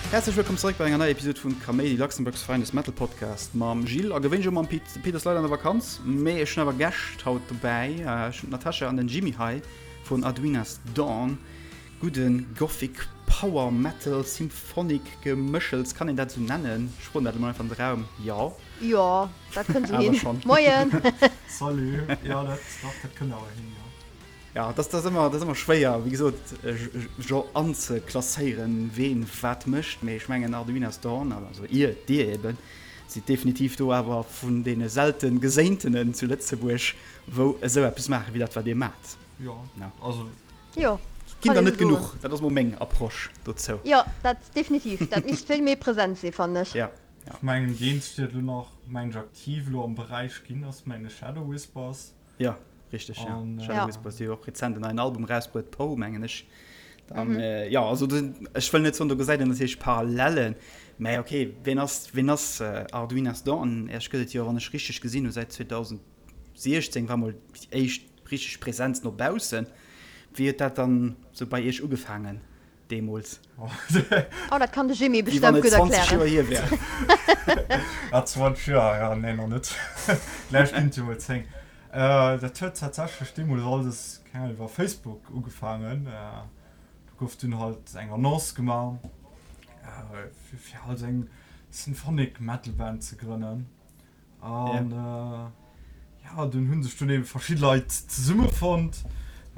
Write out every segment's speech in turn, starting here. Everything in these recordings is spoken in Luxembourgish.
Häerzlech wëllkomm zeréck bei enger neier Episode vun Kaméidi, Luxembourg's finest metal podcast mam Gilles a gewéinlech och mam Pit. De Pit ass leider an der Vakanz, mee ech hunn awer Gäscht haut dobäi. Ech hunn d'Natasha an den Jimmy hei vun Arduina's Dawn. Gudde Gothic Power Metal Symphonic Gemëschels, kann een dat esou nennen? Ech froen dat elo mol einfach an de Raum. Jo. Jo, dat kënnt esou hin. Moien! Salut! Jo, dat, dach, dat kënnt awer hin, jo. Ja, dat ass ëmmer, dat ass ëmmer schwéier, wéi gesot, jo anzeklasséieren, ween wat mécht. Mee ech mengen Arduina's Dawn, also ihr, dir eben, sidd definitiv do awer vun deene selten Geséintenen zu Lëtzebuerg, wou esou eppes maachen, wéi dat wat dir maacht. Jo, also. Jo, Ginn der net genuch, dat ass mol meng Approche dozou. Jo, dat definitiv, dat misst vill méi present sinn, fannen ech. Ja. Ech mengen déi eenzeg déi dat elo nach, mengen ech, aktiv elo am Beräich ginn ass, mengen ech, Shadow Whispers. Jo, richteg, jo. Shadow Whispers, déi hu och rezent en neien Album erausbruet, Poe, mengen ech. Dann, jo, also ech wëll net soen, do gesäit een natierlech Parallellen, mä ok, ween ass, ween ass Arduina's Dawn? Iech gëtt et jo, wann ech richteg gesinn hu, säit 2016 war mol déi éischt Richteg Präsenz no baussen. Wéi huet dat dann sou bei iech ugefaangen deemools? Oh, dat kann de Jimmy Wéi wann bestëmmt et gutt 20 Joer erklären. hier wär. Ah, 20 Joer, ja, nee, nach net. Vläicht ginn et jo mol 10. Dat huet tatsächlech deemools alles, keng Ahnung, iwwer Facebook ugefaangen. Do gouf dunn halt eng Annonce gemaach, fir halt eng Symphonic Metal Band ze grënnen. An ja, dunn hu sech dunn ebe verschidde Leit zesummefonnt.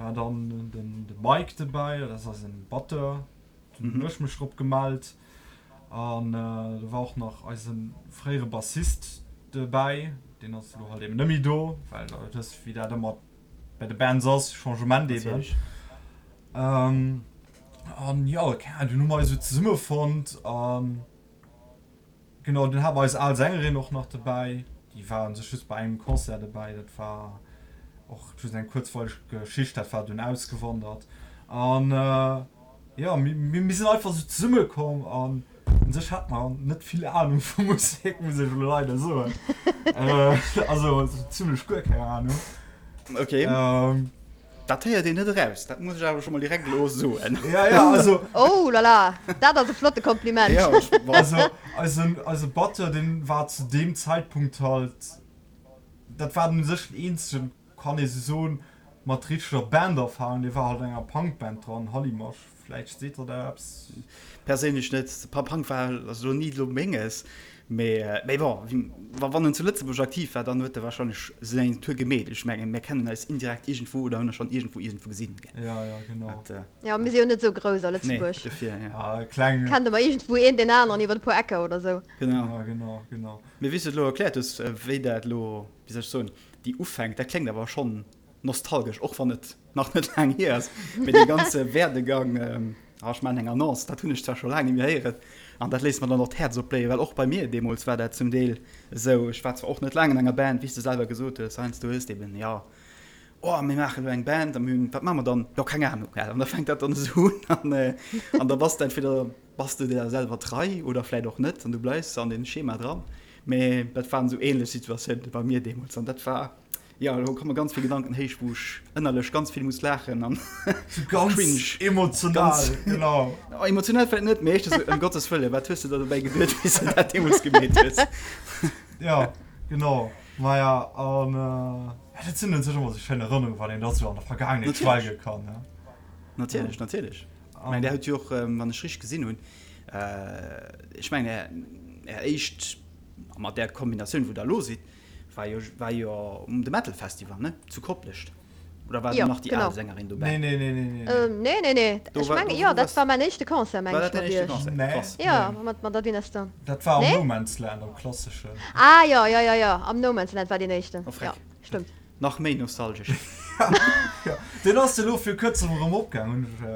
War dann den de Mike dobäi, dat ass eisen Batteur, dunn hunn ech mech drop gemellt. An do war och nach eise fréiere Bassist dobäi, deen ass elo halt eben net méi do, well der wësst wéi dat ëmmer bei de Bands ass, Changement eben. An jo, keng Ahnung, dunn hu mer eis esou zesummefonnt an. Genau, dunn hate mer eis al Sängerin och nach dobäi. Déi war un sech just bei engem Concert dobäi. Dat war och just eng kuerzweileg Geschicht, dat war dunn ausgewandert. An jo, mir sinn einfach esou zesummekomm an un sech hate mer net vill Anung vu Musek, muss ech elo leider soen. Also zimmlech guer keng Anung. Okay. Dat héiert een net eraus, dat muss ech awer scho mol direkt elo soen. Ja, ja, also. Oh la la, dat ass e flotte Kompliment. Ja, ech, also, eisen, eise Batteur, deen war zu deem Zäitpunkt halt, dat war u sech den eenzegen, kann ee sou soen, mat richteger Banderfahrung, dee war halt an enger Punkband dran, Hallimasch, vläicht seet der dat eppes. Perséinlech net. Punk war also elo ni elo menges, mee mee bon, wa wann en zu Lëtzebuerg aktiv war, dann huet e wahrscheinlech seng Tour gemeet. Ech mengen, mir kennen eis indirekt iergendwou oder hunn e schonn iergendwou iergendwou gesinn, gell. Ja, ja, genau. Dat, Jo, mir si jo net esou grouss a nee, Lëtzebuerg. dofir, ja. Ah, kleng. Kennt ëmmer iergendwou een deen aneren iwwer e puer Ecker oder esou. Genau. Ja, genau, genau. Mee wéi s du et elo erkläert hues, wéi dat elo, wéi soll ech soen, déi Ufänk, dat kléngt awer schonn nostalgesch, och wann et nach net laang hier ass, mee dee ganze Werdegang, ah, ech maachen eng Annonce, dat hunn ech zwar scho laang net méi héieren, an dat léisst mer dann och d'Häerz opbléien, well och bei mir deemools war dat zum Deel esou, ech war zwar och net laang an enger Band, wéi s de selwer gesot hues, heiansdo hues de eben, jo, oh, mir maachen elo eng Band a mir hunn, wat maache mer dann, jo, keng Ahnung, an da fänkt dat dann esou un an, an da bass de entweder bass de der selwer trei oder vläit och net an du bleifs an deem Schema dran, mee dat waren esou ähnlech Situatiounen bei mir deemools an dat war. Jo, elo komme ganz vill Gedanken héich, wou ech ënnerlech ganz vill muss laachen an So ganz cringe. emotional, Ganz genau. Oh, emotional vläit net, mee éischter sou, ëm Gottes Wëllen, wat hues de der dobäi geduet, wéi s de dat deemools gemeet hues? Ja, genau. Maja, an ja, dat sinn un sech ëmmer sou schéin Erënnerungen, wann een da sou an der Vergaangenheet Natierlech. schwelge kann, ne? Natierlech, natierlech. Ech mengen, där huet jo och, wann ech richteg gesinn hunn, ech mengen, är, är éischt, mat där Kombinatioun, wou der elo sidd, War jo, war jo um de Metal Festival, ne? Zu Koplescht. Oder war do Jo, nach déi genau. al Sängerin dobäi? Nee, nee, nee, nee, nee, nee. Nee, nee, nee. Do Ech war, mengen, do, jo, do dat war's, war mäin éischte Concert, meng war ech, dat däin mat éischte iech. Concert? Nee, Krass. Jo, nee. mat, mat der Dynasty. Dat war am Nee? No Man's Land, am klasseschen. Ah, jo, jo, jo, jo, am No Man's Land war deen éischten. Oh, Jo, freck. stëmmt. Nach méi nostalgesch. Jo, deen ass elo vir kuerzem erëm opgaang, hunn ech,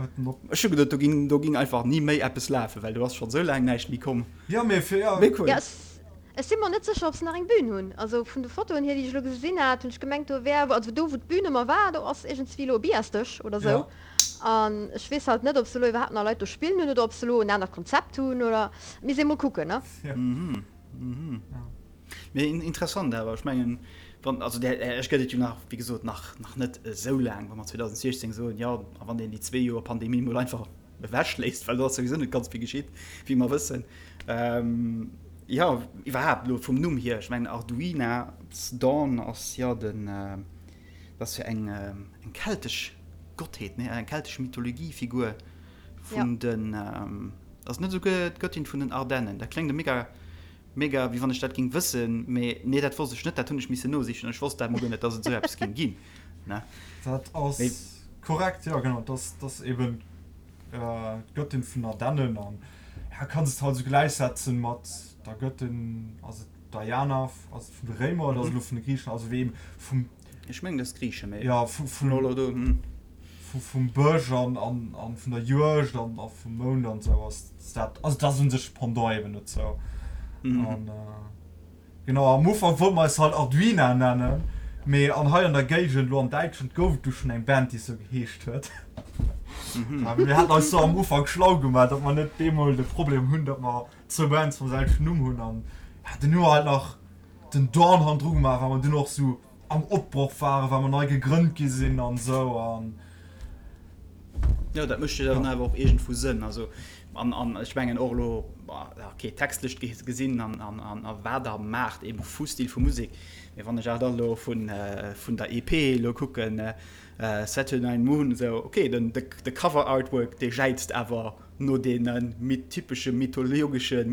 huet en op. Ech hu geduet, do ging, do ging einfach ni méi eppes lafen, well do ass schonn esou laang näischt méi komm. Jo, mee fir, jo. Mee cool. Jo, Ech si mer net sécher ob se nach eng Bühn hunn. Also vun de Fotoen hier déi ech elo gesinn hat, hunn ech gemengt do wär, also do wou d'Bühn ëmmer war, do ass iergendswéi elo e Billardsdësch oder sou. Ja. An ech weess halt net ob se elo iwwerhaapt nach Leit do spillen hunn oder ob se elo en anert Konzept hunn oder misst ee mol kucken ne. Ja. Mhm, mhm. Mee interessant awer, ech mengen wann, also där Iech gëtt et jo nach, wéi gesot, nach nach net esou laang, wa mer 2016 soen, jo, a wann een déi zwee Joer Pandemie mol einfach. ewech léisst, well do ass souwisou net ganz vill geschitt, wéi mer wëssen. Jo, iwwerhaapt elo vum Numm hier, ech mengen Arduina's Dawn ass jo den, dat ass jo eng eng keltesch Gottheet, nee, eng keltesch Mythologiefigur vun den, ass net esouguer d'Göttin vun den Ardennen? Dat kléngt mega Mega, wéi wann ech dat ging wëssen, mee nee dat wosst ech net, dat hunn ech missen nosichen, ech wosst dat mol guer net, dass et esou eppes ging ginn, ne? Dat ass korrekt, jo genau, dat ass eben d'Göttin vun Ardennen an ja kanns et halt esou gläichsetzen mat der Göttin, ass et Diana, ass et vun de Réimer oder ass et elo vun de Griichen, also wéi eben vum. Ech mengen dat ass Griichen, mee jo vun elo do, hm. Vum Bësch an vun der Juegd an vum Mound an esou ass dat, also dat ass un sech Pendant eben dozou. An genau, am Ufank wollte mer eis halt Arduina nennen, mee an hei an der Géigend, elo an Däitschland, gouf et du schonn eng Band, déi esou geheescht huet. A mir haten eis do am Ufank schlau gemaach, datt mer net bemol de Problem hunn, datt mer zwou Bands mam selwechten Numm hunn. An ja, dunn hu mer halt nach den Dawn hannendru gemaach, well mer dunn och esou am Opbroch waren, well mer nei gegrënnt gi sinn an esou an. Jo, dat mécht jo dann awer och iergendwou Sënn. Also, an, an ech mengen och elo, okay, textlech gesinn an, an, an a wat Der maacht, eebe vu Stil vu Musek, mee wann ech awer dann elo vun, vun der EP elo kucken, Saturnine Moon, esou, okay, den, de, de Cover Artwork, dee jäizt awer no deene typesche mythologesche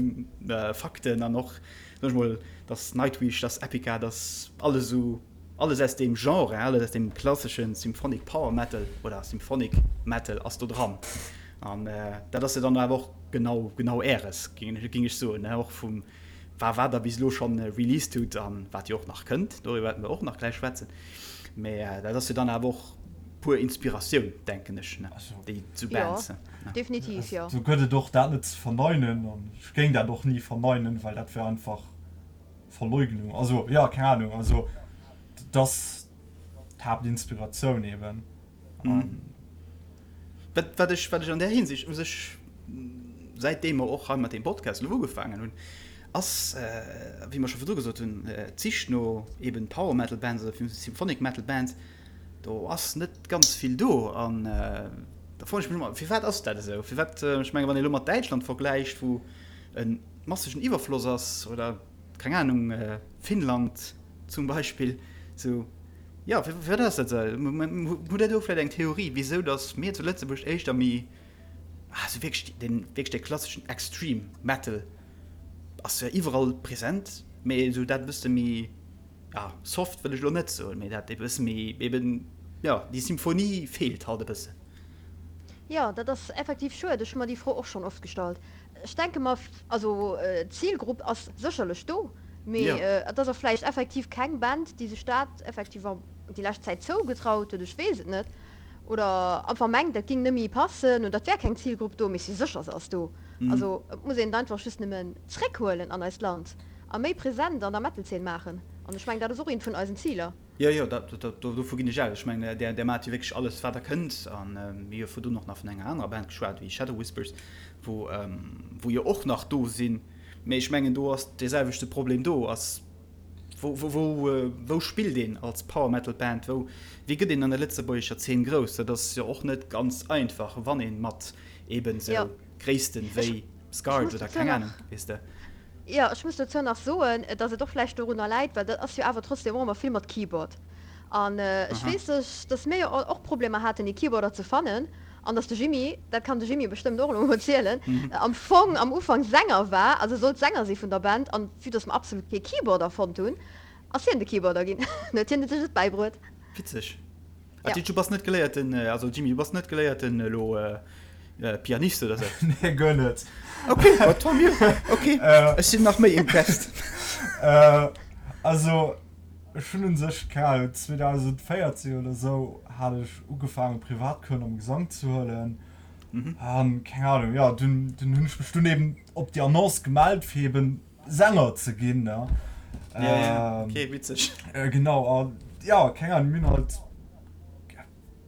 Fakten an och, Soen ech mol, dass Nightwish, dass Epica, dass alles esou, alles aus deem Genre, alles aus deem klassesche Symphonic Power Metal oder Symphonic Metal ass do dran. An dat ass jo dann awer och genau, genau Äres, géing ech soen, och vum wa wat Der bis elo schonn released hutt an wat jo och nach kënnt, doriwwer wäerte mer och nach gläich schwätzen. Mä dat ass jo dann awer och puer Inspiratioun, denken ech, déi sou Bands. Jo, definitiv, jo. Do gëtt et och dat net ze verneinen an ech géing dat och ni verneinen, well dat wär einfach Verleugnung. Also, jo, keng Ahnung, also dat ass d'Haaptinspiratioun eben. Wat, wat ech, wat ech an där Hinsicht u sech, säitdeem mer och hei mat deem Podcast elo ugefaangen hunn, ass, wéi mer scho virdru gesot hunn, d'Sich no eben Power Metal Bands oder Symphonic Metal Bands, do ass net ganz vill do. An da froen ech mech ëmmer, firwat ass dat esou? Firwat, ech menge wann ee elo mat Däitschland vergläicht, wou e massegen Iwwerfloss ass, oder keng Anung, Finnland zum Beispill, esou, jo, firwat ass dat esou? Hutt Der do vläicht eng Theorie, wisou datt mir zu Lëtzebuerg éischter méi, also wierklech dee wierklech dee klasseschen Extreme Metal ass jo iwwerall present, mee esou dat e bësse méi, ja, soft wëll ech elo net soen, mee dat e bësse méi eben, jo, déi Symphonie feelt halt e bëssen. Jo, dat ass effektiv schued. Ech hu mer déi Fro och schonn oft gestallt. Ech denke mer, also d'Zilgrupp ass sécherlech do, mee et ass och vläicht effektiv keng Band, déi sech dat effektiv déi lescht Zäit zougetraut huet, ech weess et net, oder einfach mengt, dat géing net méi passen oder et wär keng Zilgrupp do, mee ech si sécher, se ass do. Also et muss een et einfach just nëmmen zréckhuelen an eist Land a méi present an der Metal-Zeen maachen. An ech mengen, dat ass och eent vun eisen Ziler. Jo, jo, dat, dat, dovu ginn ech aus. Ech mengen, där, där maacht jo wierklech alles, wat Der kënnt. A mir hu jo virdrun och nach vun enger anerer Band geschwat, wéi Shadow Whispers, wou, wou jo och nach do sinn. Mee ech mengen, do ass dee selwechte Problem do, ass, wou, wou, wou, wou spillt een als Power Metal Band? Wou, wéi gëtt een an der lëtzebuergescher Zeen grouss? Dat ass jo och net ganz einfach, wann ee mat eeben esou Gréissten wéi Scarred oder keng Ahnung, weess de. Jo, ech muss dozou nach soen, dass et och vläicht dorunner läit, well dat ass jo awer trotzdem och ëmmer vill mat Keyboard. An ech weess, dass mir jo och Problemer haten, ee Keyboarder ze fannen an dass de Jimmy, dat kann de Jimmy bestëmmt och elo emol zielen, am Fong am Ufank Sänger war, also sollt Sänger si vun der Band an vue dass mer absolut kee Keyboarder fonnt hunn, ass hien de Keyboarder ginn. Huet hien sech et bäibruet. Witzeg. Ah, du bass net geléierten, also Jimmy, du bass net geléierten elo Pianist oder sou? Nee, guer net. Okay, ma tant mieux. Okay, ech sinn nach méi impressed. Also, ech hunn un sech, keng Ahnung, 2014 oder sou hat ech ugefaangen Privatcoursen am Gesank ze huelen. An, keng Ahnung, jo, dunn, dunn hunn ech mech dunn eben op déi Annonce gemellt, fir eben Sänger ze ginn, ne? Ja, ja, okay, witzeg. Genau, an ja, keng Ahnung, mir hunn halt,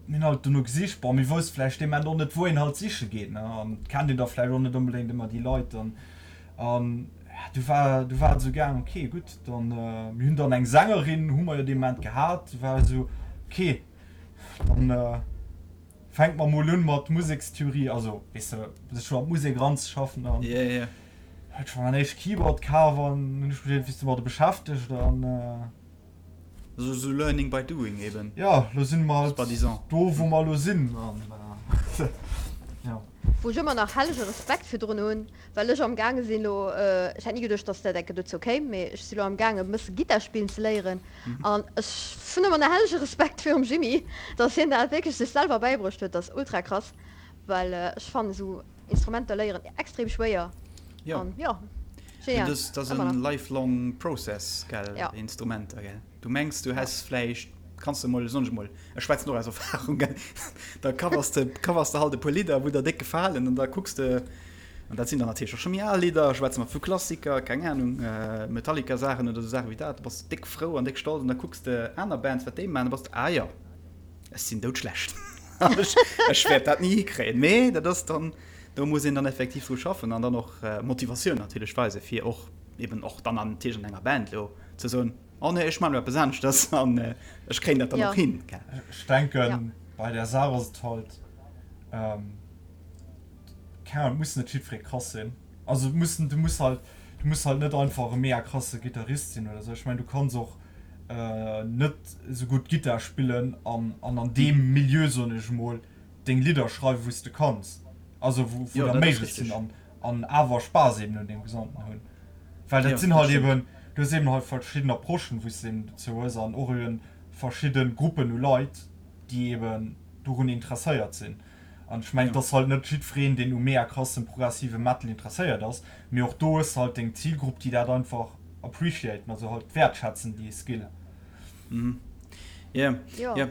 mir hunn halt dono gesicht. Bon, mir wousste vläicht dee Moment och net, wou een halt siche geet, ne? An et kennt een da vläicht och net onbedéngt ëmmer déi Leit dann. An ja, du war, du war et esou gaang, okay, gutt, dann, mir hunn dann eng Sängerin, hu mer jo dee Moment gehat, du war et esou, okay, dann. Fänkt mer mol un mat Musekstheorie, also weess de, sech scho an d'Musek eranzeschaffen an yeah, yeah. huet scho mäin éischt Keyboard kaf an hunn ech mech iergendwéi domadder beschäftegt an. Sou sou learning by doing eben. Jo, lo sinn mer halt do wou mer lo sinn an jo. Wou ech ëmmer nach hellege Respekt virdrun hunn, well ech am gaange sinn elo, ech hätt ni geduecht, dass dat enke dozou kéim, mee ech si lo am gaange e bësse Gittar spillen ze léieren an ech hunn ëmmer nach hellege Respekt virum Jimmy, dass hien dat wierklech sech selwer bäibruecht huet, dat ass ultra krass, well ech fannen esou Instrumenter léieren extrem schwéier an jo, genial. Dat ass en lifelong process, gell, Instrumenter, gell. Du mengs du häss vläicht, kanns de mol, soen ech mol, ech schwätzen och aus Erfahrung, gell, da covers de, covers de halt e puer Lidder, wou der déck gefalen an da kucks de, an dat sinn dann natierlech och scho méi al Lidder, schwätze mer vu Klassiker, keng Ahnung, Metallica-Saachen oder esou Saache wéi dat, da bass de déck frou an déck stolz an da kucks de aner Bands, wat déi maachen, da bass de, ah jo, ech sinn doudschlecht an ech, ech wäert dat ni hikréien. Mee dat ass dann, do muss een dann effektiv dru schaffen an dann och Motivatioun natierlech weisen, fir och eben och dann natierlech an enger Band elo ze soen, Oh nee, ech man elo eppes aneschters an ech kréien dat dann och hin. Ech denken bei där Saach ass et halt, keng Ahnung, et muss net jiddweree krass sinn. Also et muss, du muss halt, du muss halt net einfach e mega krasse Gittarist sinn oder sou. Ech mengen du kanns och net esou gutt Gittar spillen an an deem Milieu, soen ech emol, deng Lidder schreiwen wou s de kanns, also wou der méiglech sinn an an awer Spaass eben un deem Gesamten hunn. Well dat sinn halt eben, du hues eben halt verschidden Approchen, wou s de eben dozou hues an och eben verschidde Gruppen u Leit, déi eben dorun interesséiert sinn. An ech mengen, et ass halt net jiddwereen, deen u mega krassem progressive Metal interesséiert ass, mee och do hues de halt deng Zilgrupp, déi dat einfach appreciaten, also halt wäertschätzen, déi Skill. Jo, jo,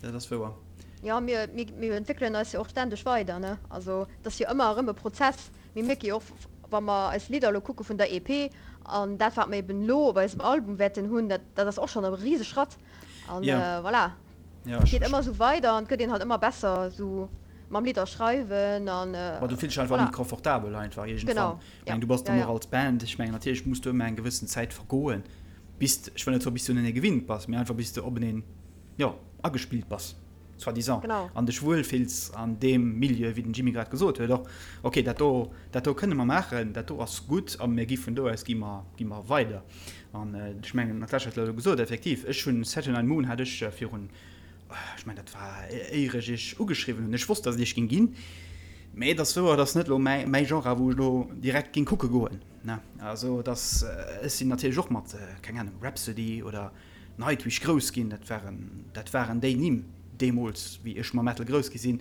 dat ass wouer. Jo, mir, mir entwéckelen eis jo och ständeg weider, ne? Also, et ass jo ëmmer erëm e Prozess. Mir mierke jo och, wa mer eis Lidder elo kucke vun der EP an dat, wat mer eben elo op eisem Album wäerten hunn, dat, dat ass och schonn e Riseschratt. An voilà, et geet ëmmer esou weider an et gëtt een halt ëmmer besser esou mam Lidder schreiwen an voilà. Ma du fills dech einfach méi confortabel einfach iergendwann. Ech mengen, du bass dann och als Band, ech mengen, natierlech muss do ëmmer eng gewëssen Zäit vergoen, bis, ech wëll net soen, bis du unenee gewinnt bass, mee einfach bis de openeen, jo, agespillt bass, soi-disant, an dech wuel fills an deem Milieu, wéi den Jimmy grad gesot huet och, ok, dat do, dat do kënne mer maachen, dat do ass gutt a mir gi vun do aus gi mer, gi mer weider. An ech mengen, d'Natasha huet elo gesot, effektiv, ech hunn Saturnine Moon hat ech virun, ech mengen, dat war éier ech iech ugeschriwwen hunn, ech wosst, datt et iech géing ginn, mä et ass wouer, et ass net elo mäi, mäi Genre, wou ech elo direkt géing kucke goen, ne. Also et ass, ech sinn natierlech och mat, keng Ahnung, Rhapsody oder Nightwish grouss ginn, dat waren, dat waren déi Nimm deemools, wéi ech mam Metal grouss gi sinn.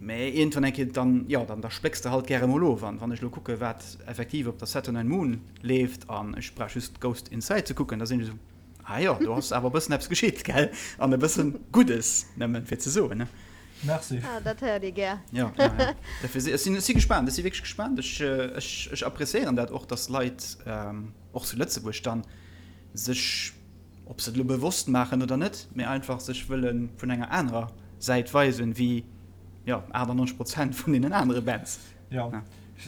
Mä iergendwann eng Kéier dann, jo, dann da splécks de halt gäre mol of. An wann ech elo kucke wat effektiv op der Saturnine Moon leeft an ech brauch just Ghost Inside ze kucken, da sinn ech esou, ah jo, do ass awer e bëssen eppes geschitt, gell? An e bëssen Guddes, nëmmen fir ze soen, ne? Merci. Ah, dat héiert ee gär. Jo, jo, jo. Dofir si, ech sinn, ech si gespaant, ech si wierklech gespaant. Ech, ech, ech appreciéieren dat och, dass Leit, och zu Lëtzebuerg dann, sech, ob se et elo bewosst maachen oder net, mee einfach sech wëlle vun enger anerer Säit weisen, wéi, jo, 98 Prozent vun deenen anere Bands. Jo,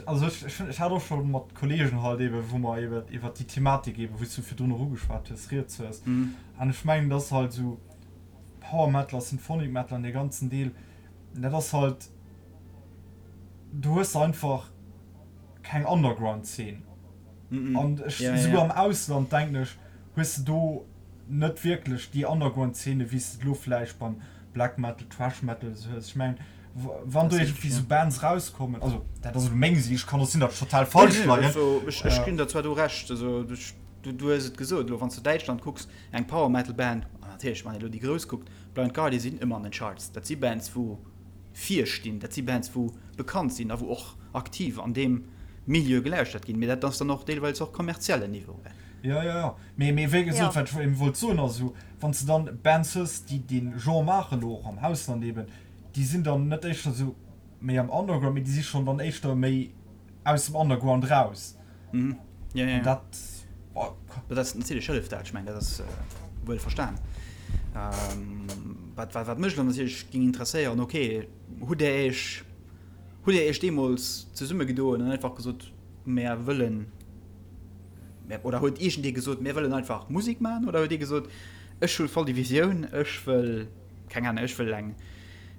also ech, ech, ech hat och scho mat Kollegen halt eeben, wou mer eeben iwwert déi Thematik eeben, wou s du virdrun och ugeschwat hues, rieds hues. An ech mengen, et ass halt esou, Power Metal a Symphonic Metal an dee ganzen Deel, dat ass halt, do hues de einfach keng Underground-Zeen. An ech, esouguer am Ausland, denken ech, hues de do net wierklech déi Underground-Szene, wéi s de et elo vläicht beim Black Metal, Thrash Metal esou hues. Ech mengen, wann do iergendwéi esou Bands erauskommen, also dat ass elo meng Sicht, kann och sinn, datt ech total falsch leien. Ech ginn der zwar do Recht, also du hues et gesot, elo wann s de Däitschland kucks, eng Power Metal Band, an natierlech wann ee elo déi grouss kuckt, Blind Guardian sinn ëmmer an den Charts, dat si Bands wou vir stinn, dat si Bands wou bekannt sinn a wou och aktiv an deem Milieu gelauschtert ginn, mee dat ass dann och deelweils och kommerziellen Niveau. Jo, jo, jo, mee, mee wéi gesot, wat ech eben wollt soen ass esou, wann s de dann Bands hues, déi dee Genre maachen, elo och am Ausland eben, déi sinn dann net éischter esou méi am Underground, mee déi si schonn dann éischter méi aus dem Underground raus. Mhm. Ja, ja, ja. Dat, oh. Dat ass natierlech hëlleft dat, ech mengen dat ass wuel verstan. Ähm, wat, wat, wat mech dann natierlech ging interesséieren, okay, hutt der Iech, hutt der Iech deemools zesummegedoen an einfach gesot, mär wëllen, mär, oder huet iergendee gesot, mär wëllen einfach Musek maachen, oder huet ee gesot, ech hu voll déi Visioun, ech wëll, keng Ahnung, ech wëll eng,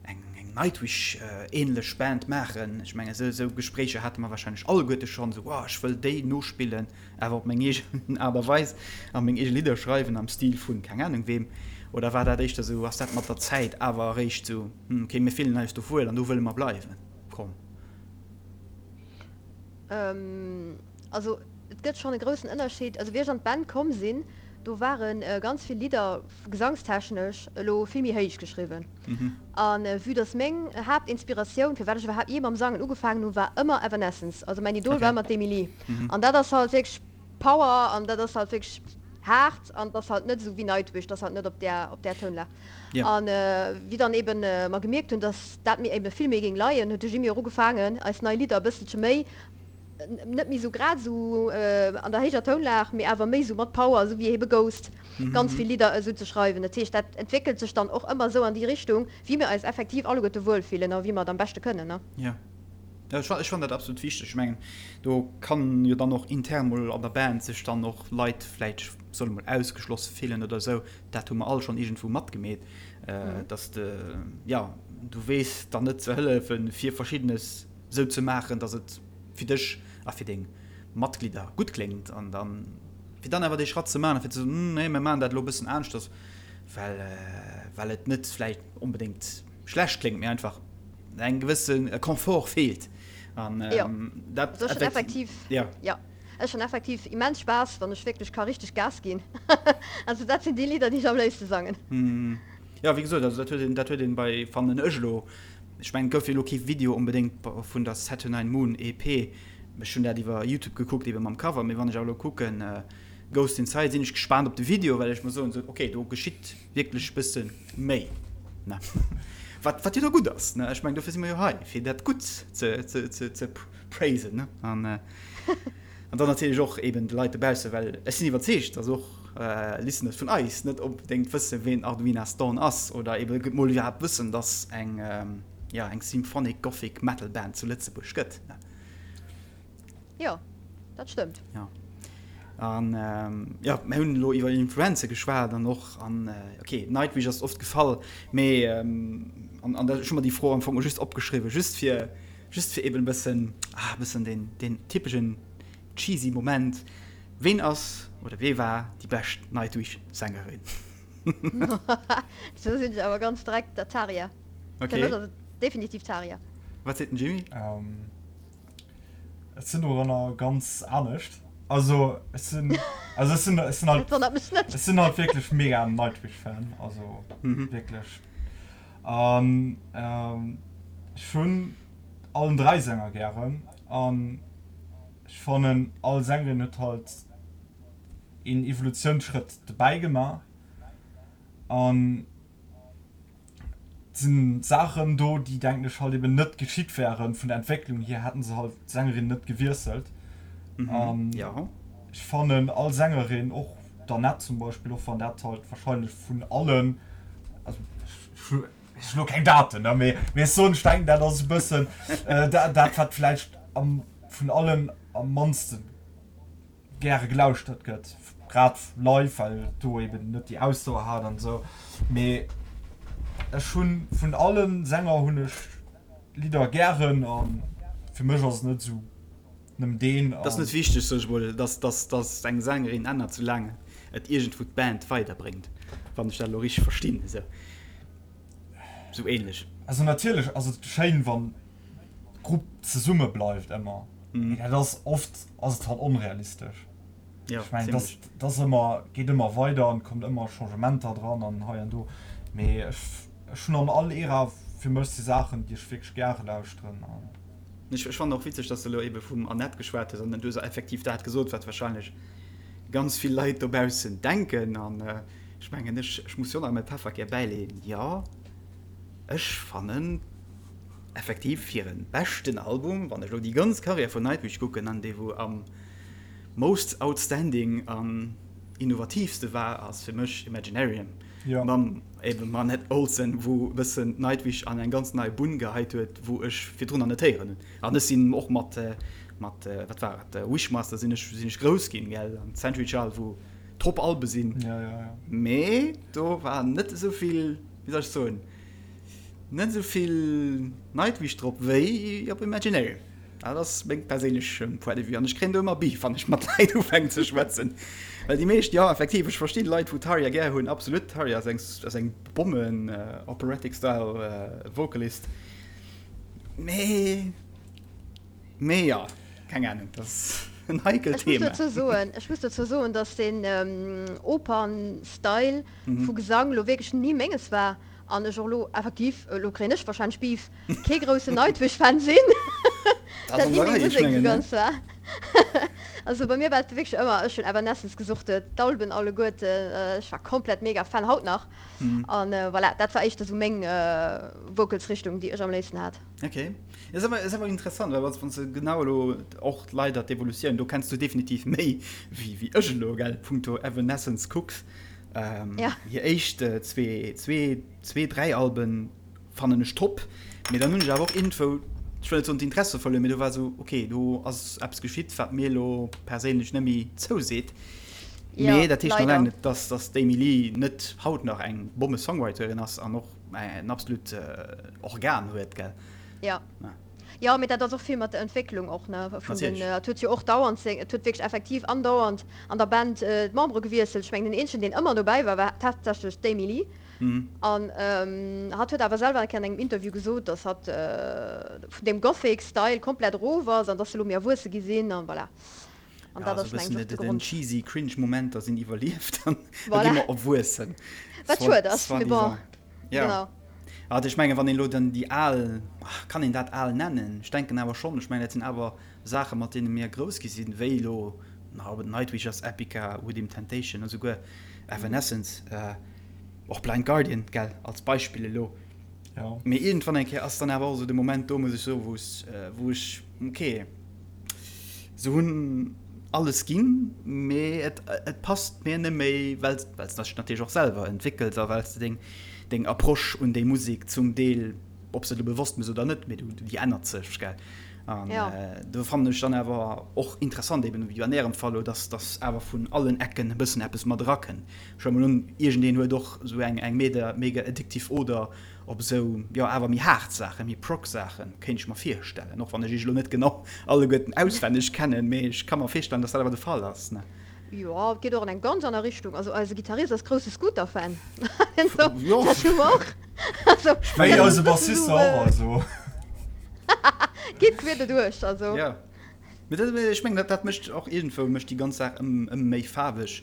eng, eng. Nightwish-ähnlech Band maachen? Ech mengen, esou, esou Gespréicher hate mer wahrscheinlech alleguerte schonn, esou, oh, ech wëll déi nospillen, awer op meng eegen Aart a Weis a meng eege Lidder schreiwen am Stil vun keng Ahnung weem. Oder war dat éischter esou, ass dat mat der Zäit awer eréischt esou, hm, okay, mir fillen eis do wuel an do wëlle mer bleiwen komm? Also et gëtt schonn e groussen Ënnerscheed. Also wéi ech an d'Band komm sinn, do ware ganz vill Lidder gesangstechnesch elo vill méi héich geschriwwen. A vue dass meng Haaptinspiratioun, firwat ech iwwerhaapt jee mam Sangen ugefaangen hunn, war ëmmer Evanescence. Also mäin Idol war ëmmer d'Amy Lee. An dat ass halt wierklech Power an dat ass halt wierklech haart an et ass halt net esou wéi Nightwish, dat ass halt net op där op där Tounlag. An wéi dann eben mer gemierkt hunn, dass dat mir eben vill méi géing leien, huet de Jimmy och ugefaangen eis nei Lidder e bësselche méi, net méi esou grad esou an der héijer Tounlag, mee awer méi esou mat Power, esou wéi ebe Ghost, ganz vill Lidder esou ze schreiwen. Dat heescht, dat entwéckelt sech dann och ëmmer esou an déi Richtung, wéi mir eis effektiv alleguerte wuel fillen a wéi mer et am beschte kënnen, ne? Jo, ech fannen dat absolut wichteg. Ech mengen, do kann jo dann och intern mol an der Band sech dann och Leit vläicht, solle mol ausgeschloss fillen oder esou. Dat hu mer all schonn iergendwou matgemeet, dass de, jo, du weess dann net ze hëllefen, fir Verschiddenes esou ze maachen, dass et fir dech a fir deng Matglidder gutt kléngt an dann, fir dann awer dee Schratt ze maachen a fir ze soen, nee, mir maachen dat elo e bëssen aneschters, well, well et net vläicht onbedéngt schlecht kléngt, mee einfach eng gewësse Confort feelt. An dat effektiv, jo, ech hunn effektiv immens Spaass, wann ech wierklech ka richteg Gas ginn. Also dat sinn déi Lidder, déi ech am léifste sangen. Jo, wéi gesot, also dat huet een, dat huet een bei, fannen ech elo, Ech mengen et gouf jo elo kee Video onbedéngt vun der Saturnine Moon EP. Ech hunn dat iwwer Youtube gekuckt ebe mam Cover, mee wann ech awer elo kucken Ghost Inside sinn ech gespaant op de Video, well ech mer soen sou ok do geschitt wierklech bësse méi ne wat wat jo da gutt ass ne. Ech mengen dofir si mer jo hei fir dat gutt ze ze ze ze praisen ne an An dann natierlech och eben de Leit dobaussen, well ech sinn iwwerzeegt, dass och Listeners vun eis net onbedéngt wëssen, ween Arduina Stone ass oder eben mol iwwerhaapt wëssen, dass eng, jo, eng Symphonic Gothic Metal Band zu Lëtzebuerg gëtt. Jo, dat stëmmt. Jo. An, jo, mir hunn elo iwwer Influenze geschwat an och an, ok, Nightwish ass oft gefall, mee, an, an ech hu mer déi Fro am Fong just opgeschriwwen, just fir, Just fir eben e bëssen, ah, e bëssen deen, deen typeschen cheesy Moment. Ween ass oder wee war déi bescht Nightwish-Sängerin? Do sinn ech awer ganz direkt der Tarja. Okay. Fir mech ass et definitiv d'Tarja. Wat seet den Jimmy? Ech sinn doranner ganz anescht. Also ech sinn, also ech sinn, ech sinn halt, Dat wonnert mech net. ech sinn halt wierklech mega Nightwish-Fan, also wierklech. An ech hunn allen 3 Sänger gären an ech fannen all Sängerin huet halt een Evolutiounsschrëtt dobäi gemaach an et sinn Saachen do déi denken ech halt eben net geschitt wären vun der Entwécklung hier hätten se halt d'Sängerin net gewiesselt an ech fannen all Sängerin och d'Annette zum Beispill och wann dat halt wahrscheinlech vun allen also ech hu lo keng Daten, ne, mee mee ech soen, ech denken dat ass e bëssen dat dat wat vläicht am vun allen am mannste gäre gelauschtert gëtt, grad live, well et do eben net déi Ausdauer hat an esou. Mee ech hunn vun alle Sänger hunn ech Lidder gären a fir mech ass et net esou Nëmmen deen an. T'ass net wichteg, sot ech mol, dass, dass, dass eng Sängerin ännert, soulaang et iergendwou d'Band weiderbréngt, wann ech dat elo richteg verstinn, esou, esou ähnlech. Also natierlech ass et schéin, wann d'Grupp zesumme bleift ëmmer, mee dat ass oft ass et halt onrealistesch. Jo, Ech mengen, zimmlech. dat ass ëmmer, geet ëmmer weider an et kommt ëmmer Changementer dran an hei an do, mee ech, ech hunn an all Ära fir mech si Saachen, déi ech wierklech gäre lauschteren an. Ech fannen och witzeg, dass de elo ebe vum Annette geschwat hues an du hues effektiv dat gesot, wat wahrscheinlech ganz vill Leit dobaussen denken. An ech mengen, ech, ech muss jo nach mäi Pefferkär bäileeën, jo, ech fannen effektiv hire beschten Album, wann ech elo déi ganz Karriär vun Nightwish kucken, an dee wou am most outstanding an innovatiivste war, ass fir mech Imaginarium. Ja. Mam eben Annette Olsen, wou e bëssen d'Nightwish an eng ganz nei Bunn geheit huet, wou ech virdrun nach net héieren hunn. An ech sinn och mat, mat wat war et, Wishmaster sinn ech, sinn ech grouss ginn, gell, an Century Child, wou top Albe sinn. Ja, ja, ja. Mee do war net esou vill, wéi soll ech soen? Net esou vill Nightwish drop wéi op Imaginarium. Dat ass meng perséinlech Point de vue an ech kréien do ëmmer Beef, wann ech mat Leit ufänken ze schwätzen. Well déi meescht, jo effektiv, ech verstinn Leit wou Tarja gär hunn, absolut, Tarja ass eng ass eng Bommen Operatic Style Vocalist, mee mee jo, keng Ahnung, dat ass en heikelt Ech muss Thema. dozou soen, ech muss dozou soen, datt deen Opern-Style vu Gesang lo wierklech ni menges war. An ech och elo effektiv, elo kréien ech wahrscheinlech Beef, kee groussen Nightwish-Fan sinn. Dat ni meng Musek esou ganz war. Also bei mir war et wierklech ëmmer, ech hunn Evanescence gesuchtet, d'Alben alleguerten, ech war komplett mega Fan, haut nach. An voilà, dat war éischter esou meng Vocals-Richtung, déi ech am léifsten hat. Ok, ass awer, ass awer interessant, well wann s de genau elo och leider d'Evolutioun, do kenns du definitiv méi wéi wéi ech elo, gell, punkto Evanescence kucks. Ähm, ja. Hir éischt äh, zwee, zwee, zwee, dräi Alben fannen ech top. Mee dann hunn ech awer och iergendwou, ech wëll net soen d'Interesse verluer, mee do war esou, okay, do ass eppes geschitt, wat mir elo perséinlech net méi zouseet. Ja, Mee dat heescht nach leider. laang net, dass, dass d'Amy Lee net haut nach eng Bomme-Songwriterin ass an och en absolut äh, Organ huet, gell? Ja. Ja. Jo, mee dat ass och vill mat der Entwécklung och, ne, vun den, Natierlech. et huet jo och dauernd seng, et huet wierklech effektiv andauernd an der Band d'Membere gewiesselt. Ech mengen, den eenzegen, deen ëmmer dobäi war, war tatsächlech d'Amy Lee. An hatt huet awer selwer eng Kéier an engem Interview gesot, datt hatt vun deem Gothic-Style komplett erof ass an datt se elo méi erwuesse gi sinn an voilà. An Ja, dat esou ass, e mengen bëssen ech, och de den Grond. cheesy cringe Momenter sinn iwwerlieft an da gi Voilà. mer erwuessen. Wat Soit, schued ass, mee bon, soi-disant. Ja. genau. Also ech mengen, wann een elo dann déi al, kann een dat al nennen? Ech denken awer schonn. Ech mengen, dat sinn awer Saache mat deene mir grouss gi sinn, wéi elo, na, ob et Nightwish ass, Epica, Within Temptation, esouguer Evanescence, och Blind Guardian, gell, als Beispill elo. Jo. Mee iergendwann eng Kéier ass dann awer och esou de Moment do, muss ech soen, wou wou ech, okay, se hunn alles ginn, mee et et passt mir net méi, well well s de dech natierlech och selwer entwéckels a well s de deng deng Approche un déi Musek zum Deel, ob s de et elo bewosst méchs oder net, mee du déi ännert sech, gell. An Ja. do fannen ech dann awer och interessant, eben wéi an Ärem Fall elo, dass dass awer vun allen Ecken e bëssen eppes mat erakënnt. Ech huele mol un, iergendeen huet och esou eng eng mega mega addictive Oder op esou, jo, awer méi haart Saachen, méi Prog-Saachen, kéint ech mer virstellen, och wann ech iech elo net genau alleguerten auswenneg kennen, mee ech ka mer virstellen, dass dat awer de Fall ass, ne? Jo, et geet och an eng ganz aner Richtung. Also eise Gittarist ass grousse Scooter-Fan. Jo. Dat hu mer och. Also, Wéi dat ass eise e bëssen Bassist esou, och, also. Geet queer doduerch, also. Jo, mee dat, ech mengen, dat dat mécht och iergendwou mécht déi ganz Saach ëm ëm méi faarweg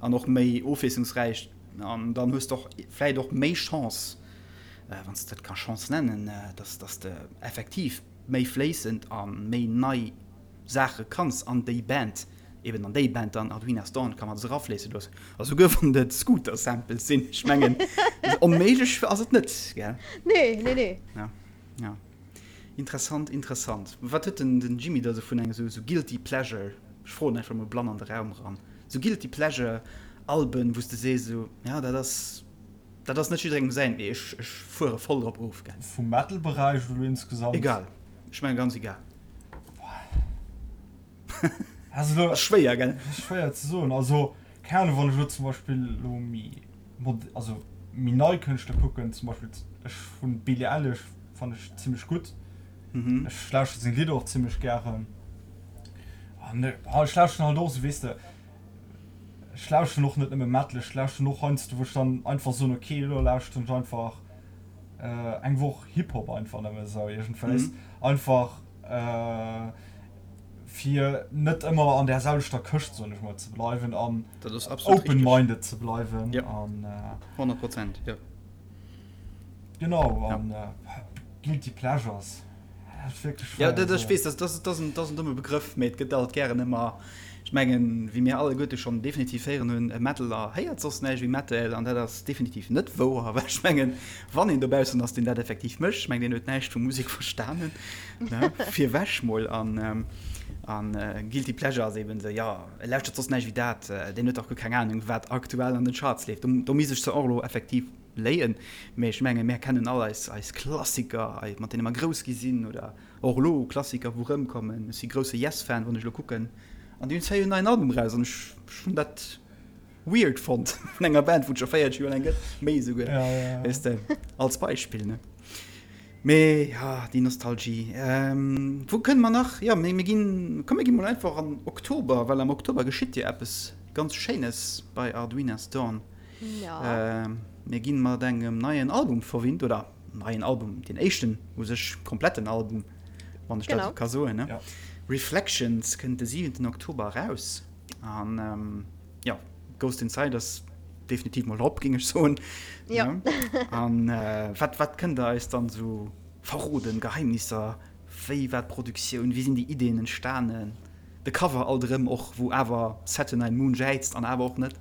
an och méi ofwiesslungsräich. An dann hues de och vläit och méi Chance, wann s de dat ka Chance nennen, dass dass de effektiv méi fléissend a méi nei Saache kanns an déi Band, eben an déi Band dann Arduina's Dawn ka mat erafléisse loossen. A souguer wann et Scooter-Samples sinn, ech mengen, onméiglech ass et net, gell? Nee, nee, nee. Ja, ja. Interessant, interessant. Wat huet den den Jimmy da sou vun engem sou guilty pleasure, ech froen einfach mol blann an de Raum eran, sou guilty pleasure Alben wou s de sees sou, ja dat ass dat ass net jidderengem säin, mee ech ech fuere voll drop of, gell. Vum Metal Beräich oder insgesamt? Egal, ech mengen ganz egal. Also lo, Ass schwéier, gell? Ass schwéier ze soen. Also keng Ahnung, wann ech lo zum Beispill lo méi mod, also méi nei Kënschtler kucken, zum Beispill ech hunn d'Billie Eilish fannen ech zimmlech gutt. Mhm. Ech lauschteren seng Lidder och zimmlech gären. An ech lauschteren halt och esou, weess de, ech lauschteren och net nëmme Metal, ech lauschteren och heiansdo wou ech dann einfach soen, okay elo lauschteren ech einfach eng Woch Hip-Hop einfach nëmme esou iergendwéis. Einfach fir net ëmmer an där selwechter Këscht, soen ech mol, ze bleiwen an Dat ass absolut open richteg. minded ze bleiwen Ja. an 100 Prozent, jo. genau Ja. an guilty pleasures, dat ass wierklech Ja, schwéier dat, ze ech soen. weess, dat, dat, dat ass en, dat ass en domme Begrëff, mee et gëtt alt gären ëmmer, ech mengen, wéi mir alleguerte schonn definitiv héieren hunn, e Metaler héiert soss näischt wéi Metal an dat ass definitiv net wouer, well ech mengen, wann een dobaussen ass, deen dat effektiv mécht, ech mengen, deen huet näischt vu Musek verstanen, ne, virwech mol. An, an Guilty Pleasure ass eben esou, jo, e lauschtert soss näischt wéi dat, deen huet dach guer keng Anung, wat aktuell an den Charts leeft. Do, do misst ech se och elo effektiv léien, mee ech mengen, mär kennen all eis, eis Klassiker, mat deene mer grouss gi sinn, oder och elo Klassiker, wou erëmkommen. Ech si grousse Yes-Fan, wann ech elo kucken, an déi hunn zwar jo en neien Album eraus, an ech, ech hunn dat weird fonnt vun enger Band, wou et scho 40 Joer laang gëtt, méi esouguer, Ja, ja, ja. weess de, als Beispill, ne. Mee ja, déi Nostalgie. Wou kënne mer nach? Jo, mee mir ginn, komm mir gi mol einfach an Oktober, well am Oktober geschitt jo eppes ganz Schéines bei Arduina's Dawn. Mir gi mat engem neien Album verwinnt, oder neien Album, deen éischten u sech kompletten Album, wann ech dat esou ka soen, ne? Reflections kënnt de siwenten Oktober eraus an jo, Ghost Inside ass definitiv mol drop, géing ech soen. Jo. An wat, wat kënnt Der eis dann esou verroden, Geheimnisser, wéi war d'Produktioun, wéi sinn déi Ideen entstanen, de Cover alt erëm och, wou awer Saturnine Moon jäizt an awer och net?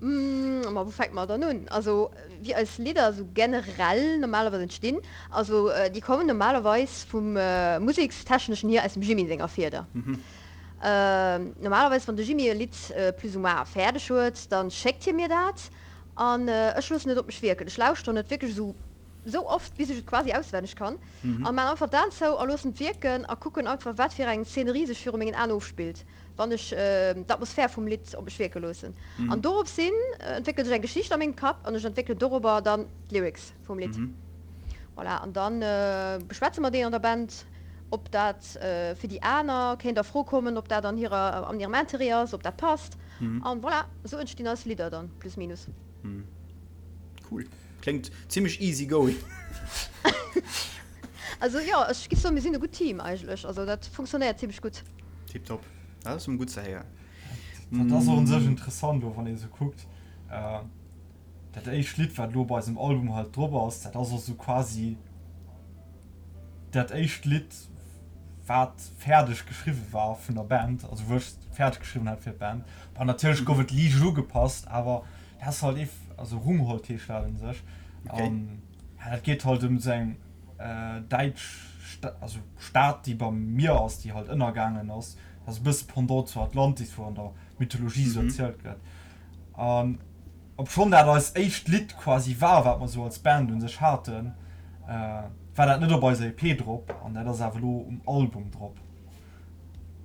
Ma wou fänke mer dann un? Also wéi eis Lidder esou generell normalerweis entstinn, also déi kommen normalerweis vum musekstechneschen hier aus dem Jimmy senger Fieder. Normalerweis wann de Jimmy e Lidd plus ou moins fäerdeg huet, da schéckt hie mir dat an ech loossen et op mech wierken. Ech lauschteren et wierklech esou esou oft bis ech et quasi auswenneg kann a maan einfach d'Aen zou a loossen et wierken a kucken einfach wat fir eng Szenerie sech viru mengen Aen ofspillt. wann ech d'Atmosphär vum Lidd op mech wierke loossen. An dorops hin entwéckelt sech eng Geschicht a mengem Kapp an ech entwéckelen dorobber dann d'Lyrics vum Lidd. Voilà, an dann beschwätze mer déi an der Band, ob dat fir déi aner kéint a Fro kommen, ob dat an hirer, an hirem Interêt ass, ob dat passt. An voilà, esou entstinn eis Lidder dann, plus minus. Cool. Kléngt zimmlech easy going. Also jo, ech giff soen, mir sinn e gutt Team eigentlech. Also dat funktionéiert zimmlech gutt. Tiptop. Dat ass emol gutt ze héieren. Dat ass och un sech interessant elo wann ee sou kuckt, dat éischt Lidd wat elo bei eisem Album halt drop ass, dat ass och sou quasi dat éischt Lidd wat fäerdeg geschriwwe war vun der Band, also wou ech fäerdeg geschriwwen hat fir d'Band. Bon natierlech gouf et liicht ugepasst, awer dat ass halt eef, also Rungholt heescht dat un sech. An ja dat geet halt ëm sou eng däitsch also Stad déi beim Mier ass, déi halt ënnergaangen ass. Dat ass e bësse Pendant zu Atlantis, wou an der Mythologie esou erzielt gëtt. An obschonn dat eist éischt Lidd quasi war, wat mer esou als Band un sech haten, war dat net op eiser EP drop an dat ass awer elo um Album drop.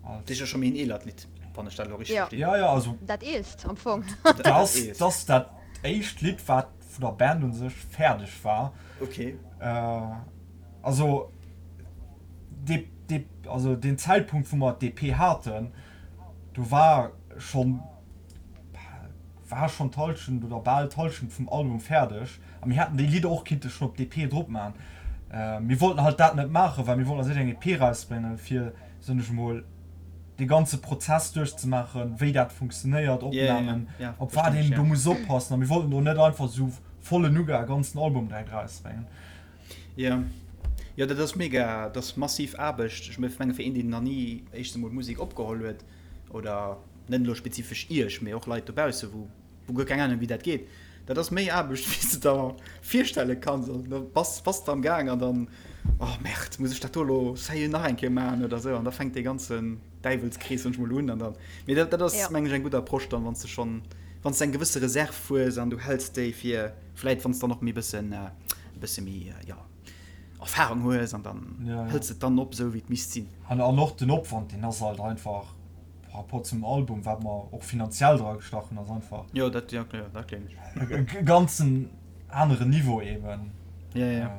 Dat ass jo scho méi en eelert Lidd, wann ech dat elo richteg verstinn. Jo, jo, also. Dat eelst am Fong. Dat ass dat éischt Lidd, wat vun der Band un sech fäerdeg war. Okay. Also, dee, dee, also deen Zäitpunkt, wou mer d'EP haten, do war schonn, war schonn d'Hallschent oder bal d'Hallschent vum Album fäerdeg. A mir hätten déi Lidder och kinnte schonn op d'EP drop maachen. Mir wollten halt dat net maachen, well mir wollten als éischt eng EP erausbréngen, fir, soen ech emol, dee ganze Prozess duerchzemaachen, wéi dat funktionéiert, Opnamen, op wat een do muss oppassen. A mir wollten do net einfach esou volle Nougat e ganzen Album direkt erausbréngen. Jo, jo, dat ass mega, dat ass massiv Aarbecht. Ech menge fir een, deen nach ni éischtens emol Musek opgeholl huet, oder net elo spezifesch Iech, mee och Leit dobausse wou wou guer keng Ahnung wéi dat geet, dat ass méi Aarbecht wéi s de der virstelle kanns. An da bass bass de am Gaang an dann, oh Merde, muss ech dat do elo sérieux nach eng Kéier maachen oder esou. An da fänkt dee ganzen Däiwelskrees soen ech mol un. An dann, mee dat dat ass mengen ech eng gutt Approche dann, wann s de schonn, wann s de eng gewësse Reserv hues an du häls déi fir vläit wann s dann och méi bëssen e bësse méi jo Erfahrung hues an dann hëls de et dann op esou wéi et misst sinn. An och den Opwand deen ass halt einfach par rapport zum Album, wat mer och finanziell dra gestach hunn, ass einfach Jo, dat, jo, jo, dat gleewen ech. E ganzen aneren Niveau eben. Ja, ja.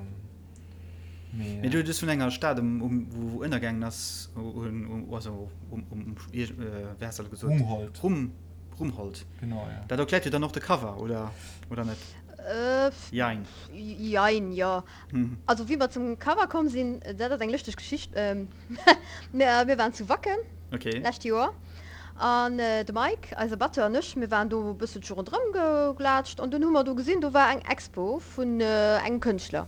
Mee, Mee du hues vun enger Stad um, um, wou, wou ënnergaangen ass, um, also um, um, wéi has de gesot? Rungholt. Rum, Rungholt. Genau, ja. Dat erkläert jo dann och de Cover, oder, oder net? Jein. Jein, jo. Also wéi mer zum Cover komm sinn, dat ass eng lëschteg Geschicht. Mir waren zu Wacken lescht Joer an de Mike, eise Batteur, an ech, mir waren do e bësselche ronderëm geglaatscht an dunn hu mer do gesinn, do war eng Expo vun engem Kënschtler.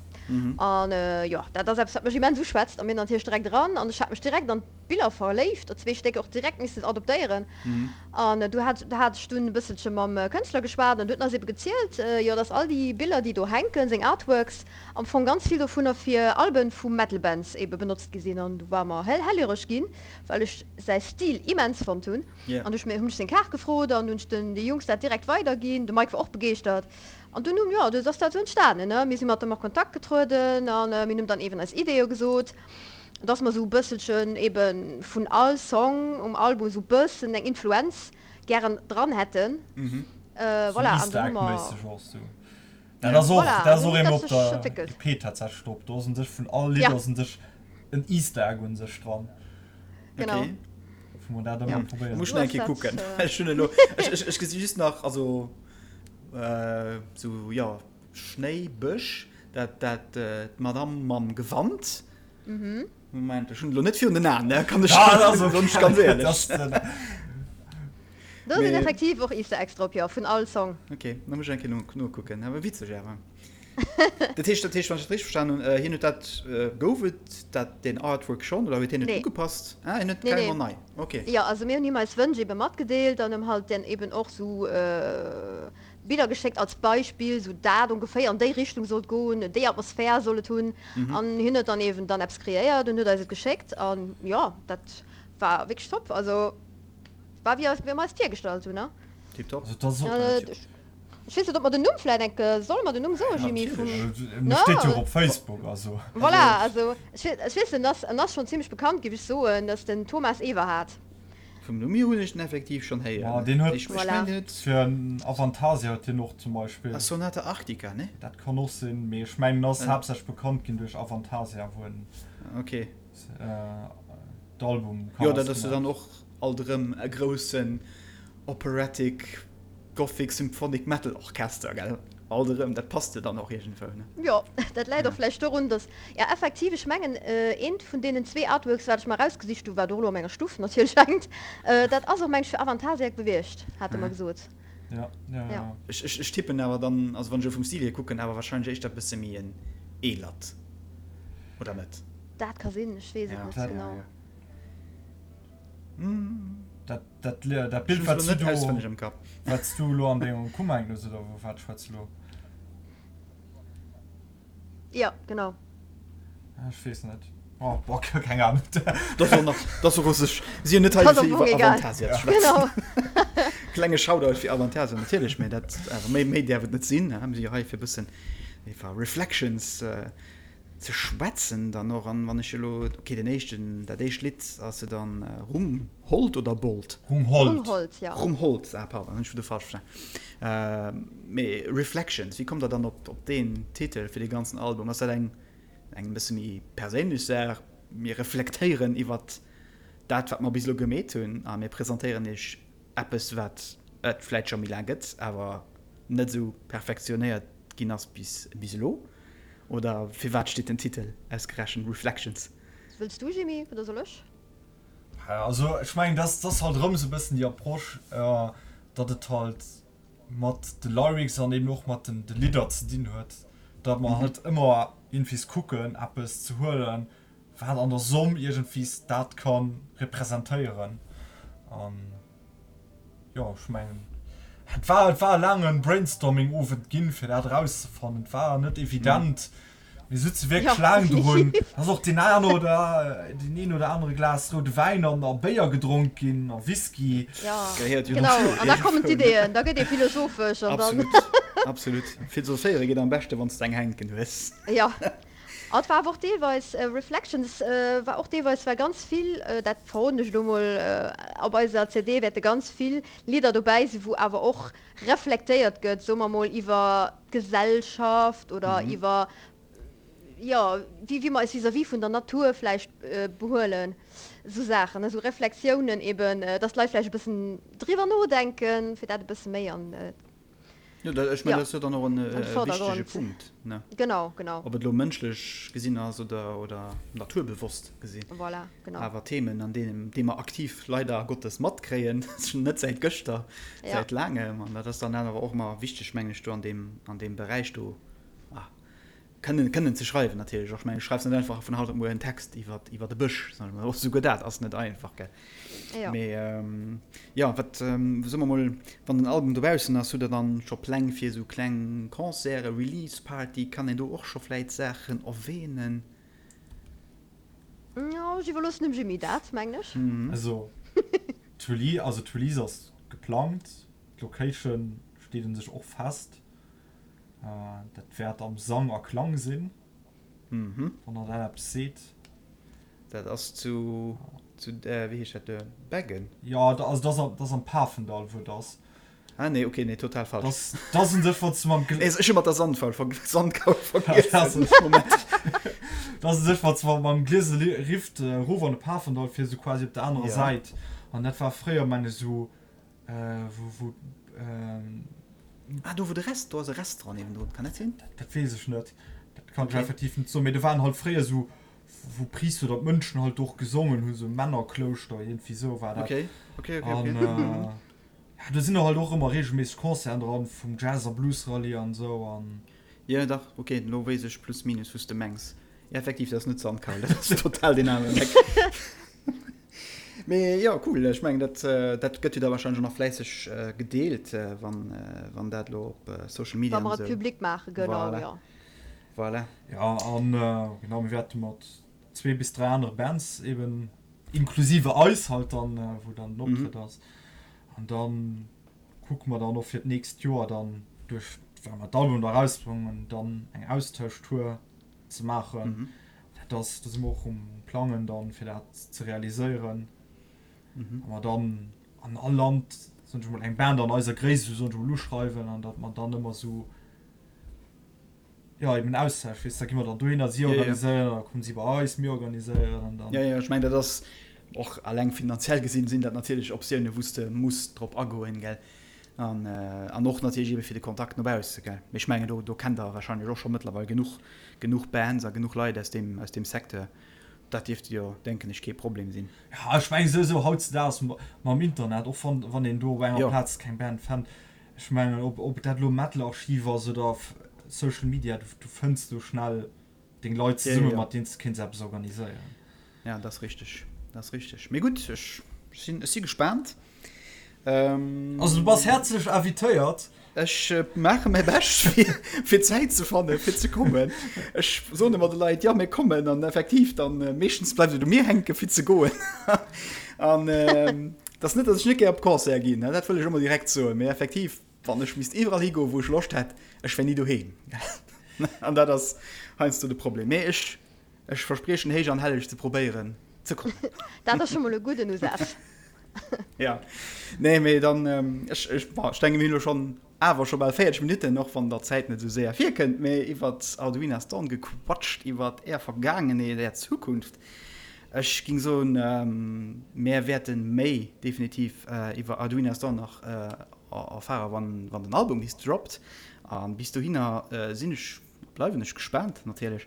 An jo, dat ass eppes wat mech immens uschwätzt a mir natierlech direkt eran an ech hat mech direkt an d'Biller verléift, zwee Stéck och direkt missen adoptéieren. An du hat hat ech dunn e bësselche mam Kënschtler geschwat an du huet en eis ebe gezielt, jo, dass all déi Biller, déi do hänken, seng Artworks, am Fong ganz vill dovunner fir Alben vu Metal-Bands ebe benotzt gi sinn. An du war mer hell hellhöreg ginn, well ech säi Stil immens fonnt hunn. An du hunn ech seng Kaart gefrot an hunn ech den de Jungs dat direkt weiderginn. De Mike war och begeeschtert. An dunn hunn, jo, du ass dat esou entstanen, ne. Mir si mat em a Kontakt getrueden a mir hunn em dann eeben eis Ideeë gesot. Dass mer esou e bësselchen ebe vun all Song um Album esou bëssen eng Influenz gären dran hätten. Voilà, an dann hu mer. Dat ass och, dat ass och eemol op der EP tatsächlech drop. Do ass un sech vun all Lidd ass un sech en Easter Egg un sech dran. Genau. Okay. Wou mer dat ëmmer probéieren. Muss ech eng Kéier kucken. Ech hunn elo, ech, ech, ech gesi just nach, also sou, jo, Schnéi, Bësch, dat, dat, d'Madame mam Gewand. Moment, ech hunn elo net virun den Aen, ne, kann ech, soen ech ganz éierlech. Do sinn effektiv och Easter Eggs drop, jo, vun all Song. Ok, da muss ech eng Kéier nokucken. Awer witzeg awer. Dat heescht, dat heescht, wann ech dat richteg verstanen hunn, hien huet dat, gouf et dat, deen Artwork schonn oder huet hien et Nee. ugepasst? Ah, hien huet Nee, nee. carrément nei, ok. Jo, also mir hunn him eis Wënsch ebe matgedeelt an em halt dann eben och sou Biller geschéckt als Beispill, sou dat ongeféier an déi Richtung sollt goen, déi Atmosphär soll et hunn. An hien huet dann eben dann eppes kreéiert an huet eis et geschéckt an jo, dat war wierklech top. Also war wéi eis, wéi mer eis virgestallt hunn, ne? Tiptop. Also dat ass och. Ech weess net, ob mer den Numm vläit enk, solle mer den Numm soen, Jimmy, vum, Ne? Steet jo och op Facebook, also. Voilà, also ech weess, en ass, en ass schonn zimmlech bekannt, géif ech soen, dat ass den Thomas Everhard. Vum Numm hier hunn ech den effektiv schonn héieren. Ma deen huet. Ech mengen, deen huet. Fir Avantasia huet hien och zum Beispill. A Sonata Arctica, ne? Dat kann och sinn, mee ech mengen, en ass haaptsächlech bekannt ginn duerch Avantasia, wou en. Ok. D'Album Jo, dat ass jo dann och alt erëm e groussen Operatic Gothic Symphonic Metal Orchester, gell? Alt erëm, dat passt jo dann och iergendwou, ne? Jo, dat läit och vläicht dorun, dass, ja effektiv, ech mengen eent vun deenen zwee Artworks, wat ech mer erausgesicht hu, wat och elo a menger Stuff natierlech hänkt, dat ass och, meng ech, fir Avantasiac bewiescht, hate mer gesot. Ja, ja, ja. Ech, ech, ech tippen awer dann, also wann ech elo vum Stil hier kucken, awer wahrscheinlech éischter e bësse méi en eelert, oder net? Dat ka sinn, ech weess et net genau. Dat, dat, dat Bild, wat du do, wat du elo an dengem Kummer hänken hues, oder vu wat schwätz du elo? Jo, genau. Ech weess net. Oh, boah, keng Ahnung. Dat ass och nach, dat ass och sech, si hunn net hei fir iwwer Avantasia ze schwätzen. Genau. Klenge Shoutout fir Avantasia natierlech, mä dat awer méi, méi däerf et net sinn. Mir si jo hei fir e bëssen iwwer Reflections Ze schwätzen dann och. An wann ech elo, ok, den éischten, dat éischt Lidd ass jo dann Rumhold oder Bold? Rumhold. Rumhold, jo. Rumhold, ah pardon, hunn ech wieder falsch verstan. Mee Reflections, wéi kommt der dann op op deen Titel fir dee ganzen Album? Ass dat eng eng e bësse méi perséinlech Saach, mir reflektéieren iwwert dat wat mer bis elo gemeet hunn a mir presentéieren iech eppes wat et vläit scho méi laang gëtt, awer net esou perfektionéiert ginn ass bis bis elo? Oder firwat steet den Titel ausgerechent Reflections? Wëlls du Jimmy oder soll ech? Also ech mengen dat ass halt erëm esou e bëssen déi Approche, datt et halt mat de Lyrics an eben och mat de Lidder ze dinn huet, datt mer halt ëmmer iergendwees kucken eppes ze huelen, wat an der Somm iergendwees dat ka representéieren. An jo, ech mengen, et war, et war e laange Brainstorming-Owend ginn, fir dat erauszefannen. Et war net evident. Mir sutze wierklech laang drun. Et ass och deen een oder, deen een oder anere Glas roude Wäin an a Béier gedronk ginn a Whisky. Ja, genau. An da kommen d'Ideeën, da gëtt ee philosophesch an dann. Absolut, absolut. Philosophéiere geet am beschte, wann s de eng hänken hues. Jo. A et war awer och deelweis, Reflections war och deelweis, war ganz vill, dat verroden ech elo mol, op eiser CD wäerte ganz vill Lidder dobäi sinn, wou awer och reflektéiert gëtt, soe mer mol, iwwer d'Gesellschaft oder iwwer, jo, wéi wéi mer eis vis-à-vis vun der Natur vläicht behuelen, esou Saachen, esou Reflexiounen eben, dass d'Leit vläicht e bëssen driwwer nodenken, fir dat e bësse méi an Jo, dat, ech mengen, dat ass jo dann och en wichtege Punkt, ne? Genau, genau. Ob et elo mënschlech gesinn ass oder, oder naturbewosst gesinn. Voilà, genau. Awer Themen, an deenen, déi mer aktiv leider Gottes matkréien, net säit gëschter, säit laangem. An dat ass dann awer och ëmmer wichteg, mengen ech, do an deem, an deem Beräich do, ah, Kënnen, kënnen ze schreiwen natierlech och. Ech mengen, du schreifs net einfach vun haut op muer en Text iwwer, iwwer e Bësch, soen ech mol. Och souguer dat ass net einfach, gell. Jo. Mee jo, wat, soe mer mol, wann den Album dobaussen ass, hutt Der dann scho Pläng fir esou kleng Concerten, Release Party? Kann een do och scho vläit Saachen erwähnen? Jo, ech iwwerloossen dem Jimmy dat, mengen ech. Also, d'Release, also d'Release ass geplangt, d'Location steet un sech och fest. Dat wäert am Sang a Klang sinn, wann der dat eppes seet. Dat ass zu, zu, wéi heescht dat, Beggen? Jo, also dat ass am Pafendall, wou et ass. Ah nee, okay, nee, total falsch. Das, das un sech, wann du mam Nee, ech hu mat der Sandkaul ver Sandkaul vergiess. Moment. Das un sech, wann du mam Gliese Rift erof an de Pafendall fiers, sou quasi op der anerer Ja. Säit. An dat war fréier, meng ech, sou, wou, wou, Ah, do wou de Rest, do ass e Restaurant niewendrun, kann dat sinn? Dat weess ech net. Dat kann ech Okay. effektiv net soen. Mee do waren halt fréier sou, wou Priister oder d'Mönchen halt do och gesongen hunn, sou Männerklouschter, iergendwéi sou war dat. Okay, okay, okay, An, okay. Ja, do sinn och halt och ëmmer regelméisseg Concerten dran, vum Jazz a Blues Rallye an esou an. Jo dach, ok, elo weess ech plus minus wous de mengs. Jo effektiv, dat ass net Sandkaul, dat ass total deen aneren Eck. Mee jo, cool, ech mengen dat dat gëtt jo da wahrscheinlech och nach fläisseg gedeelt, wann wann dat elo op Social Media Wa an mer et esou. public maachen, genau, Voilà, jo. voilà. Jo, an genau, mir wäerte mat zwee bis dräi anere Bands eben, inklusive eis halt dann, wou dann den Optrëtt ass. An dann kucke mer dann och fir d'nächst Joer dann duerch, well mer d'Album da erausbréngen, dann eng Austauschtour ze maachen. Dat ass, do si mer och um Plangen dann, fir dat ze realiséieren. A mer dann an all Land, soen ech emol, eng Band an eiser Gréisst, esou soen ech emol, uschreiwen an datt mer dann ëmmer esou, jo, eben Austausch, weess, da gi mer dann dohinner, si organiséieren, da kommen si bei eis, mir organiséieren an dann. Jo, jo, ech mengen, dat ass och alleng finanziell gesinn, sinn dat natierlech Optiounen, wou s de muss drop agoen, gell, an, an och natierlech ebe fir de Kontakt no bausse, gell. Mee ech mengen, do, do kennt Der wahrscheinlech och scho mëttlerweil genuch, genuch Bands a genuch Leit aus deem, aus deem Secteur. Dat dierft jo, denken ech, kee Problem sinn. Jo, ech mengen souwisou hautzedaags mam Internet, och wann, wann een do op enger Plaz keng Band fennt, Ech mengen, ob ob dat elo Metal-Archiv ass oder Social Media, du du fënns do schnell deng Leit zesummen, mat deenen s de kéints eppes organiséieren. Ja, dat ass richteg, dat ass richteg. Mee gutt, ech sinn, ech si gespaant. Also du bass häerzlech invitéiert. Ech maache mäi Bescht, fir fir Zäit ze fannen, fir ze kommen. Ech soen ëmmer de Leit, jo mir kommen, an effektiv dann meeschtens bleift et u mir hänken, fir ze goen. An Et ass net, datt ech net gär op Concerte ginn, dat wëll ech och mol direkt soen, mee effektiv, wann ech misst iwwerall higoen, wou ech Loscht hätt, ech wär ni doheem. An dat ass heiansdo de Problem. Mee ech, ech verspriechen héich an helleg ze probéieren ze kommen. Dat ass scho mol e gudden Usaz. Ja, nee, mee dann, ech, ech, bon, ech denken, mir hunn elo schonn awer scho bal 40 Minutten, och wann der Zäit net esou séier virkënnt, mee iwwert Arduina Storm gequatscht, iwwert är Vergaangenheet, är Zukunft. Ech ging soen, mär wäerte méi definitiv iwwer Arduina Storm nach erfare wann den Album bis droppt. A bis dohinner sinn ech, bleiwen ech gespaant natierlech.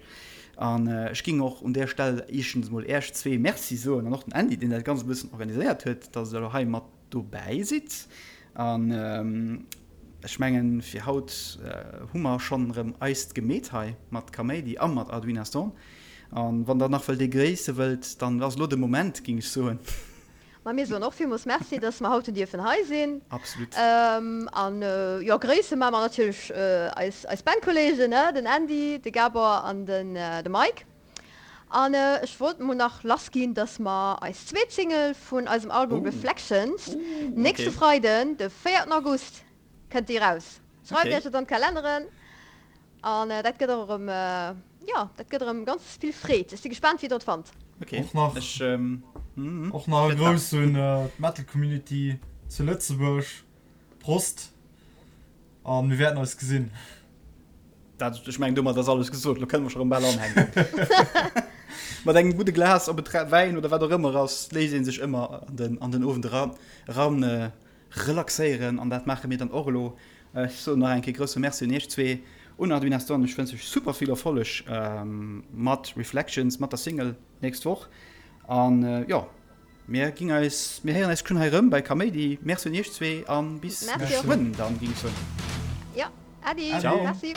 An ech ging och un där Stell éischtens emol Äech zwee Merci soen an och den Andy, deen dat Ganzt e bëssen organiséiert huet, dass Der elo hei mat dobäi sidd. An ech mengen, fir haut hu mer schonn erëm eist gemeet hei mat Kaméidi a mat Arduina Storm. An wann der nach wëllt ee gréisse wëllt, dann ass elo de Moment, ging ech soen. Ma mir soen och villmools Merci, dass mer haut hunn dierfen hei sinn. Absolut. An jo, gréisse maache mer natierlech eis eis Bandkolleegen, ne, den Andy, de Gabor an den de Mike. An ech wollt mol nach lass ginn, dass mer eis zweet Single vun eisem Album Reflections nächste Freiden, de véierten August, kënnt déi raus. Schreift iech et an d'Kalenneren. An dat gëtt och erëm, jo, dat gëtt erëm ganz vill Freed. Ech si gespaant, wéi der et fannt. Och nach, och nach e Grouss un d'Metal Community zu Lëtzebuerg. Prost a mir wäerten eis gesinn. Dat, ech mengen, domat ass alles gesot. Lo kënne mer scho rëm bal anhänken. Mat engem gudde Glas, ob et Wäin oder wat och ëmmer ass, léisst ee sech ëmmer an den, an den Owend eran, eran relaxéieren an dat maache mir dann och elo. Ech soen nach eng Kéier grousse Merci un iech zwee, un Arduin Aston. Ech wënsch iech super vill Erfolleg mat Reflections, mat der Single nächst Woch an jo, mir ginn eis, mir héieren eis geschwënn hei erëm bei Kaméidi. Merci un iech zwee an bis geschwënn dann, géing ech soen. Jo, Äddi. Ciao. Merci.